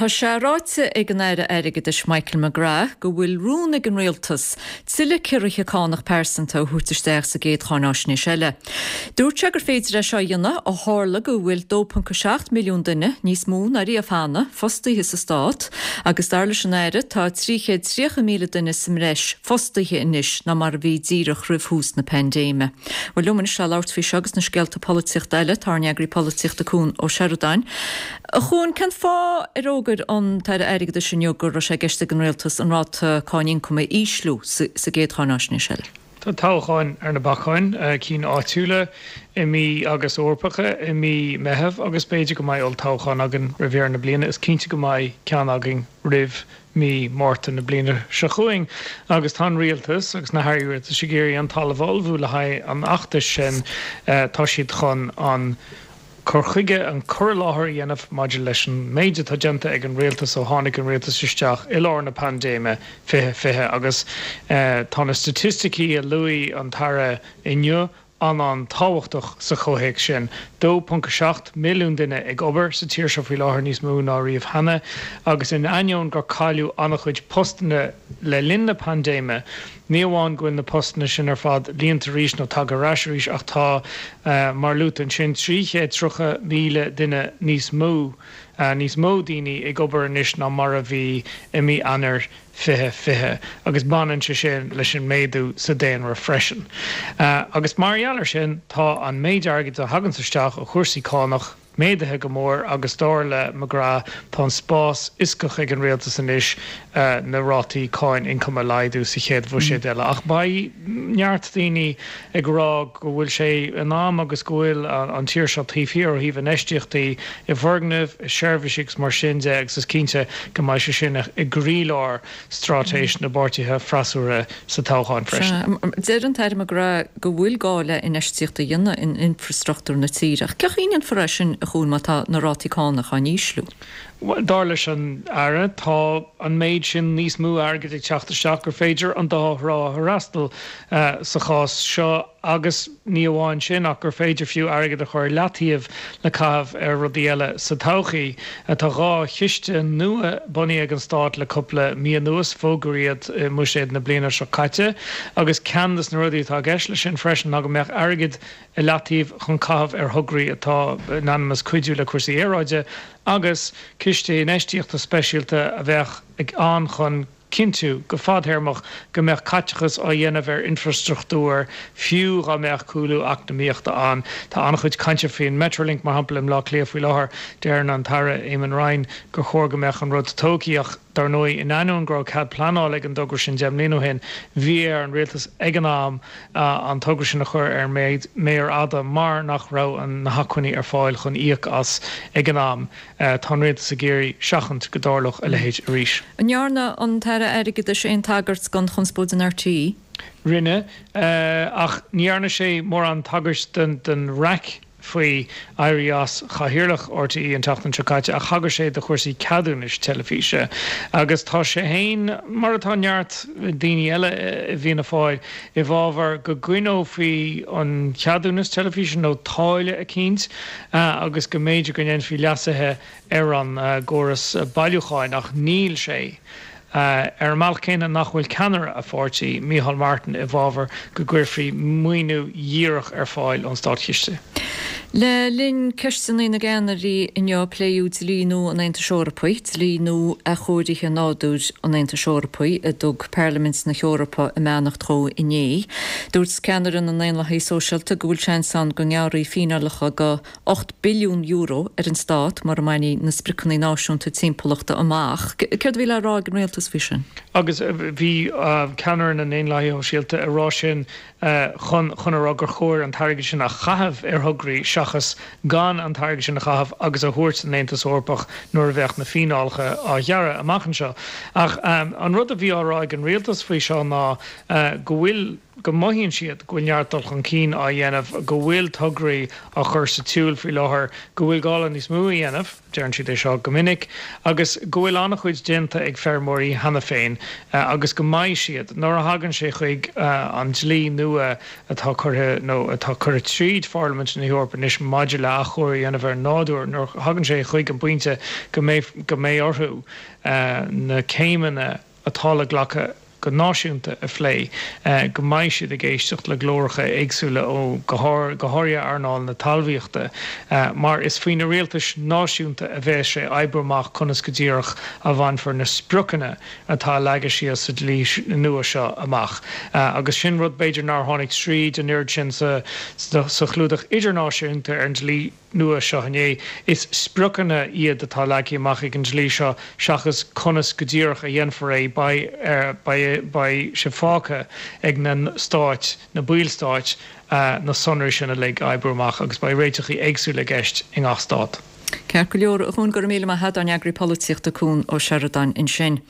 Tá sé ráite ag an Aire Airgeadais Michael McGrath go bhfuil rún ag an Rialtas tuilleadh ciorruithe cánach pearsanta a thabhairt isteach sa gcéad cháináisnéis eile. Dúirt sé gur féidir é seo a dhéanamh ó tharla go bhfuil 2.7 milliún duine, níos mó ná riamh cheana, fostaithe sa Stát agus dar leis an Aire tá 330,000 duine sa mbreis fostaithe anois ná mar a bhí díreach roimh thús na paindéime. Bhuel liom anois le labhairt faoi seo agus na scéalta polaitíochta eile, tá ár n-eagraí polaitíochta Cuan Ó Seireadáin. A Chuain, cén fáth ar fhógair an tAire Airgeadais inniu go raibh sé i gceist ag an Rialtas an ráta cáin ioncaim a ísliú sa gcéad cháináisnéis eile? Tá toghcháin ar na bacáin, cinn áitiúla i mí agus Eorpacha i mí Meitheamh agus b'fhéidir go mbeidh olltoghchán againn roimh dheireadh na bliana. Is cinnte go mbeidh ceann againn roimh mí Márta na bliana seo chugainn agus tá an Rialtas agus na hairí rialtais ag iarraidh an talamh a ullmhú le haghaidh an fheachtais sin. Tá siad chun an cur chuige, an cur i láthair a dhéanamh maidir leis an méid atá déanta ag an Rialtas ó tháinig an Rialtas isteach i lár na paindéime 2020 agus tá na staitisticí a luaigh an tAire inniu an-an-tábhachtach sa chomhthéacs sin. 2.7 milliún duine ag obair sa tír seo faoi láthair, níos mó ná riamh cheana, agus in ainneoin gur cailleadh an-chuid postanna le linn na paindéime, ní amháin go bhfuil na postanna sin ar fad líonta arís nó tagtha ar ais arís ach tá, mar luaite ansin, 330,000 duine níos mó, níos mó daoine ag obair anois ná mar a bhí i mí Eanáir 2020 agus baineann sé sin leis an méadú sa daonra freisin. Agus mar gheall air sin, tá an méid airgid a thaganns isteach ó chúrsaí cánach méadaithe go mór agus dar le McGrath tá an spás fhioscach ag an rialtas anois na rátaí cáin ioncaim a laghdú sa chéad bhuiséad eile. Ach beidh neart daoine ag rá go bhfuil sé in am agus go bhfuil an tír seo taobh thiar ó thaobh infheistíochtaí i bhfoirgnimh, i seirbhísí agus mar sin de agus is cinnte go mbeidh sé sin i gcroílár straitéis na bpáirtithe freasúra sa toghchán freisin. Deir an tAire McGrath go bhfuil gá le infheistíocht a dhéanamh in infreastruchtúr na tíre ach cén chaoi a ndéanfar é sin a Chuain má tá na rátaí cánach á n-ísliú? Bhuel, dar leis an Aire, tá an méid sin níos mó airgid ag teacht isteach gur féidir an dá thrá a fhreastal sa chás seo agus ní amháin sin ach gur féidir fiú airgead a chur i leataobh le caitheamh ar rudaí eile sa todhchaí. Tá 2 chiste nua bunaithe ag an Stát le cúpla mí anuas, fógraíodh iad i mBuiséad na bliana seo caite agus ceann de na rudaí atá i gceist leis sin freisin ná go mbeadh airgead i leataobh chun caitheamh ar thograí atá in ainm is cuidiú le cúrsaí aeráide agus ciste infheistíochta speisialta a bheadh ann chun cinntiú, go fadthéarmach, go mbeadh caiteachas á dhéanamh ar infreastruchtúr fiú dhá mbeadh cúlú eacnamaíochta ann. Tá an-chuid cainte faoin Metrolink, mar shampla, i mBleá Cliath faoi láthair. Deireann an tAire Eamon Ryan gur chóir go mbeadh an rud tógtha ach, dar ndóigh, in ainneoin go raibh cead pleanála ag an dtogra sin 10 mbliana ó shin, bhí ar an rialtas ag an am an togra sin a chur ar an méar fhada mar nach raibh na hacmhainní ar fáil chun íoc as ag an am. Tá an rialtas ag iarraidh seachaint go dtarlódh a leithéid arís. An ndearna an tAire Airgeadais aon tagairt don chonspóid in RTÉ? Rinne, ach ní dhearna sé mórán tagairt don raic faoi éirí as chathaoirleach RTÉ an tseachtain seo caite ach thagair sé do chúrsaí ceadúnais teilifíse agus tá sé féin, mar atá neart daoine eile i bhFianna Fáil, i bhfabhar go gcoinneofaí an ceadúnas teilifíse nó táille eicínt agus go mb'fhéidir go ndéanfaí leasuithe ar an gcóras bailiúcháin ach níl sé ar an mbealach céanna nach bhfuil ceannaire a pháirtí, Micheál Martin, i bhfabhar go gcuirfí maoiniú dhíreach ar fáil ón státchiste. Le linn Ceisteanna na gCeannairí inniu pléadh dlí nua an Aontais Eorpaigh, Dlí Nua Athchóirithe Nádúir an Aontais Eorpaigh, a dtug Parlaimint na hEorpa a mbeannacht dhó inné. Dúirt ceannaire na nDaonlathaithe Sóisialta go bhfuil seans ann go ngearrfaí fíneálacha de €8 billiún ar an stát mura mbainfí na spriocanna náisiúnta timpeallachta amach. Céard a bhí le rá ag an rialtas faoi sin? Agus bhí ceannaire na nDaonlathaithe Shóisialta ag rá sin chun chun a rá gur chóir an t-airgead sin a chaitheamh ar thograí seachas gan an t-airgead sin a chaitheamh agus a thabhairt don Aontas Eorpach nuair a bheadh na fíneálacha á ghearradh amach anseo. Ach an rud a bhí á rá ag an rialtas faoi seo ná go bhfuil. go mothaíonn siad go bhfuil neart dul chun cinn á dhéanamh, go bhfuil tograí á chur sa tsiúl faoi láthair, go bhfuil gá le níos mó a dhéanamh, deireann siad é seo go minic, agus go bhfuil an-chuid déanta ag feirmeoirí cheana féin agus go mbeidh siad, nuair a thagann sé chuig an dlí nua atá curtha nó atá curtha tríd Pharlaimint na hEorpa anois maidir le athchóiriú a dhéanamh ar an nádúr, nuair a thagann sé chuig an bpointe go mbeidh go mbeidh orthu na céimeanna atá le glacadh go náisiúnta a phlé, go mbeidh siad ag éisteacht le glóracha éagsúla ó, go háirithe earnáil na talmhaíochta, mar is faoi na rialtais náisiúnta a bheas sé oibriú amach conas go díreach a bhainfear na spriocanna atá leagtha síos sa dlí nua seo amach. Agus sin rud b'fhéidir nár tháinig tríd an oiread sin sa chlúdach idirnáisiúnta ar an dlí nua seo inné. Is spriocanna iad atá leagtha amach ag an dlí seo seachas conas go díreach a dhéanfar é. Beidh beidh sé fágtha ag na stáit, na ballstáit, na sonraí sin uilig a oibriú amach agus beidh réiteachaí éagsúla i gceist i ngach stát. Ceart go leor, a Chuain, go raibh míle maith agat, ár n-eagraí polaitíochta Cuan Ó Seireadáin ansin.